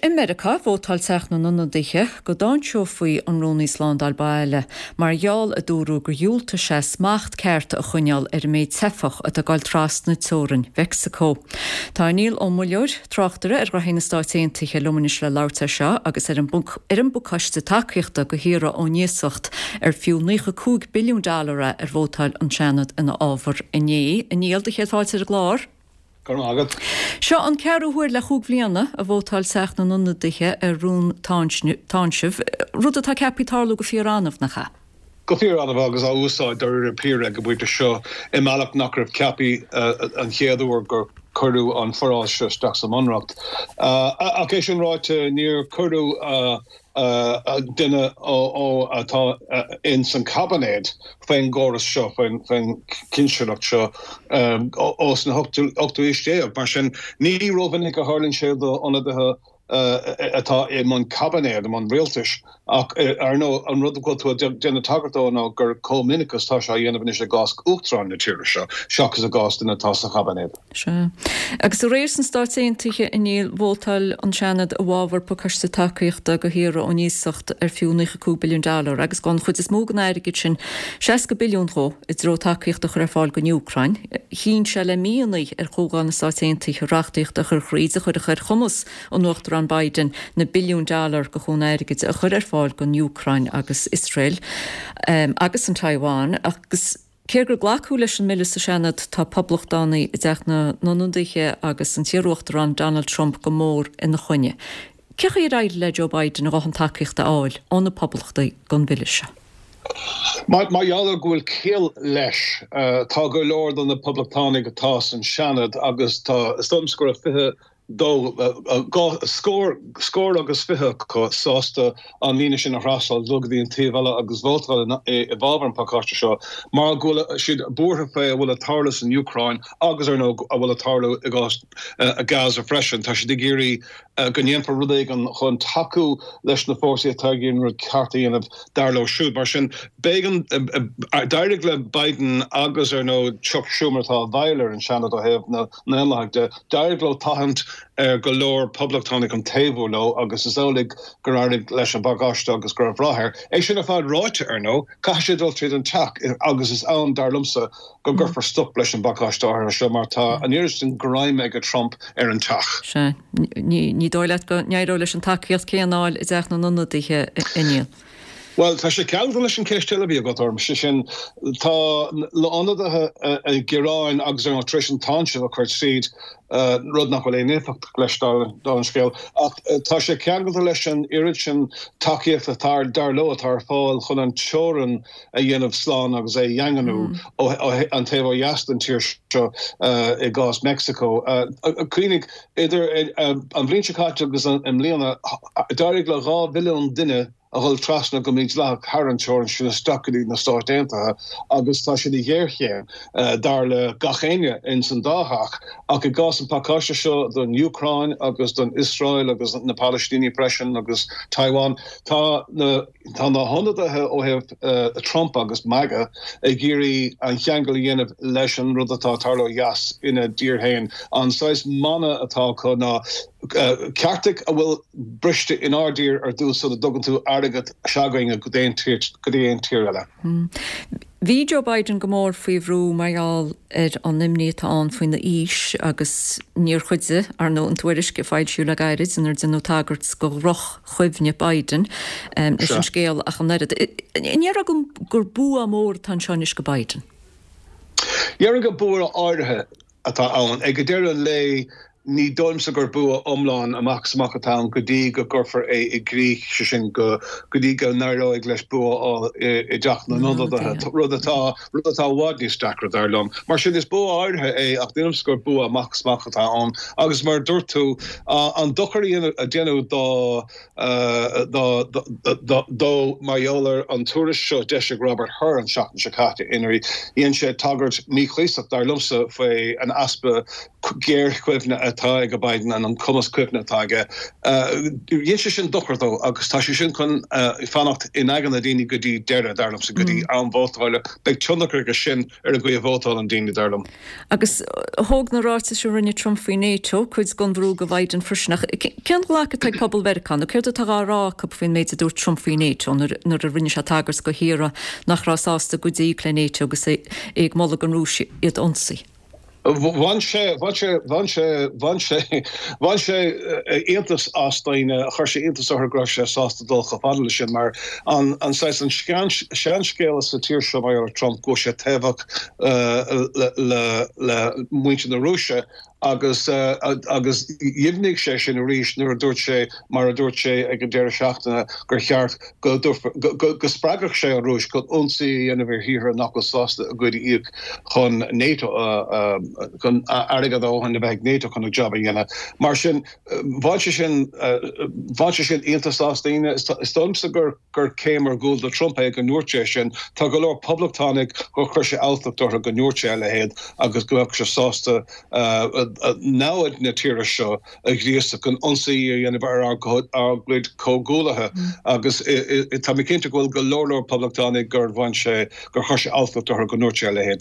I Meiriceá, vótáil Teach na nIonadaithe go dtáinseofaí an Rúnaí Slándáil Baile mar gheall, a dúradh, gur dhiúltaigh sé smacht ceart a choinneáil ar an méid teifeach atá ag dul trasna teorainn Mheicsiceo. Tá Niall Ó Muilleoir, tráchtaire ar ghnoithí na Stáit Aontaithe, liom anois le labhairt air seo agus ar an ar an bpacáiste tacaíochta do thíortha ón iasacht ar fiú 95 billiún dollar é ar vótáil an Seanad ina fhábhar inné. A Niall, do chéad fáilte ar an gclár. Go raibh maith agat. Seo an ceathrú huair le chúig bhliana a vótáil Teach na nIonadaithe ar rún táinsimh, rud atá ceaptha tarlú go fíor-annamh, nach ea? Go fíor-annamh agus á úsáid dáiríre píre ag an bpointe seo i mbealach nach raibh ceaptha an chéad uair gur cuireadh an foráil seo isteach sa mBunreacht. Ach é sin ráite, níor cuireadh duine ó atá ins an caibinéad faoin gcóras seo, faoin chinsireacht seo ós na hochtú haois déag. Mar sin, ní rómhinic a tharlaíonn sé do ionadaithe atá i mbun caibinéad, i mbun rialtais. Ach, ar ndóigh, an rud go bhfuil tú ag déanamh tagairt dó ná gur chomh minic is atá sé á dhéanamh anois i gcás Uachtarán na tíre seo, seachas i gcás duine atá sa chaibinéad. Sea. Agus aréir sna Stáit Aontaithe, a Néill, vótáil an Seanad i bhfabhar pacáiste tacaíochta do thíortha ón iasacht ar fiú 95 billiún dollar agus an chuid is mó den airgead sin, 60 billiún dhó, i dtreo tacaíocht a chur ar fáil don Úcráin. Chinn sé le míonna ar Chomhdháil na Stáit Aontaithe reachtaíocht a chur thríd a chuirfeadh ar chumas an Uachtaráin Biden na billiúin dollar de chúnamh airgid a chur ar fáil don Úcráin agus Iosrael agus an Taiwan agus Cé gur glacadh leis an mbille sa Seanad, tá Poblachtánaigh i dTeach na nIonadaithe agus an t-iarUachtarán Donald Trump go mór ina choinne. Cén chaoi ar éirigh le Joe Biden a dhóthain tacaíochta a fháil ó na Poblachtaigh don bhille seo? Mar gheall ar go bhfuil ciall leis, tá go leor de na Poblachtánaigh atá san Seanad agus tá, is dóigh liomsa go raibh 20 dó, scór, scór agus 20 acu sásta an líne sin a thrasnáil, dul go dtí an taobh eile agus vótáil i bhfabhar an phacáiste seo mar go bhfuil siad buartha faoi a bhfuil ag tarlú san Úcráin agus, ar ndóigh, a bhfuil ag tarlú i gcás Gaza freisin. Tá siad ag iarraidh go ndéanfar rud éigin chun tacú leis na fórsaí atá ag iarraidh an rud ceart a dhéanamh, dar leo siúd. Mar sin, b'éigean, d'éirigh le Biden agus, ar ndóigh, Chuck Schumer atá i bhfeighil ar an Seanad ó thaobh na nDaonlathaigh de, d'éirigh leo tathant ar go leor Poblachtánach chun taobhú leo agus is amhlaidh gur éirigh leis an bpacáiste agus go raibh rath air. É sin ar fad ráite, ar ndóigh, caithfidh sé dul tríd an teach agus is ann, dar liomsa, go gcuirfear stop leis an bpacáiste áirithe seo mar tá an oiread sin greim ag Trump ar an teach. Sea. Ní dóigh leat go n-éireoidh leis an tacaíocht céanna a fháil i dTeach na nIonadaithe, a Néill? Bhuel, tá sé ceangailte leis an cheist eile a bhí agat orm, sé sin, tá na hionadaithe ag gearán agus ar ndóigh tar éis an táinseamh a chur tríd, rud nach bhfuil aon éifeacht leis dála an scéil, ach tá sé ceangailte leis an oiread sin tacaíochta atá, dar leo, atá ar fáil chun an teorainn a dhéanamh slán agus é a dhaingniú ó an taobh ó dheas den tír seo i gcás Meicsiceo. Cuimhnigh, idir an bhliain seo caite agus i mbliana, d'éirigh le 2 mhilliún duine a dhul trasna go mídhleathach thar an teorainn sin isteach go dtí na Stáit Aontaithe agus tá sé ina ghéarchéim, dar le gach éinne ins an dá theach. Ach i gcás an phacáiste seo don Úcráin agus don Iosrael agus na Palaistínigh freisin agus Taiwan, tá na tá na hionadaithe ó thaobh Trump agus MAGA ag iarraidh an cheangal a dhéanamh leis an rud atá ag tarlú ó dheas ina dtír féin. An saghas mana atá acu ná ceartaigh a bhfuil briste inár dtír ar dtús sula dtugann tú airgead s'againne go dtí aon tír eile. Bhí Joe Biden go mór faoi bhrú mar gheall ar an imní atá ann faoina aois agus níor chuidigh, ar ndóigh, an tuairisc a foilsíodh le gairid inar deineadh tagairt do dhroch-chuimhne Biden leis an scéal ach an oiread. An ndéarfá gur bua mór atá anseo anois do Biden? Déarfainn gur bua áirithe atá ann. Ag deireadh an lae, ní dóigh liomsa gur bua iomlán amach is amach atá ann go dtí go gcuirfear é i gcrích, sé sin, go dtí go n-éireoidh leis bua a fháil i dTeach na nIonadaithe, rud atá rud atá i bhfad níos deacra, dar liom. Mar sin, is bua áirithe é ach ní dóigh liomsa gur bua amach is amach atá ann. Agus mar a dúirt tú, an dochar a deineadh dá dó mar gheall ar an tuairisc seo a d'eisigh Robert Hur an tseachtain seo caite inar dhein sé tagairt mhíchuíosach, dar liomsa, faoi an easpa géarchuimhne atá. atá ag Biden an cumas cuimhne atá aige, dhein sé sin dochar dó agus tá sé sin chun fanacht in aigne na daoine go dtí deireadh, dar liomsa, go dtí am vótála. Beidh tionchar aige sin ar an gcaoi a vótálann daoine, dar liom. Agus thóg na ráitis a rinne Trump faoi NATO cuid den bhrú go Biden freisin. Ach cén ghlacadh atá ag pobal Mheiriceá nó céard atá á rá acu faoin méid a dúirt Trump faoi NATO nuair a rinne sé tagairt go thíortha nach raibh sásta cuid a íoc le NATO agus é ag moladh don Rúis iad a ionsaí? Bhain sé, bhain sé, bhain sé, bhain sé, bhain sé iontas as daoine, chuir sé iontas orthu go raibh sé sásta dul chomh fada leis sin mar an, an saghas, an seanscéal sa tír seo mar gheall ar Trump go bhfuil sé taobhach le, le, le muintir na Rúise agus, agus dheimhnigh sé sin arís nuair a dúirt sé, mar a dúirt sé ag an deireadh seachtaine gur cheart go go spreagfadh sé an Rúis chun ionsaí a dhéanamh ar thíortha nach bhfuil sásta a gcuid a íoc chun NATO chun airgead a dhóthain a bheith ag NATO chun a job a dhéanamh. Mar sin, bhain sé sin bhain sé sin iontas as daoine. Is dóigh liomsa gur gur céim ar gcúl do Trump é go ndúirt sé sin. Tá go leor poblachtánaigh gur chuir sé alltacht orthu go ndúirt sé a leithéid agus go mbeadh sé sásta namhaid na tíre seo a ghríosadh chun ionsaí a dhéanamh ar ár gcuid comhghuaillithe agus tá mé cinnte go bhfuil go leor leor poblachtánaigh gur bhain sé, gur chuir sé alltacht orthu go ndúirt sé a leithéid.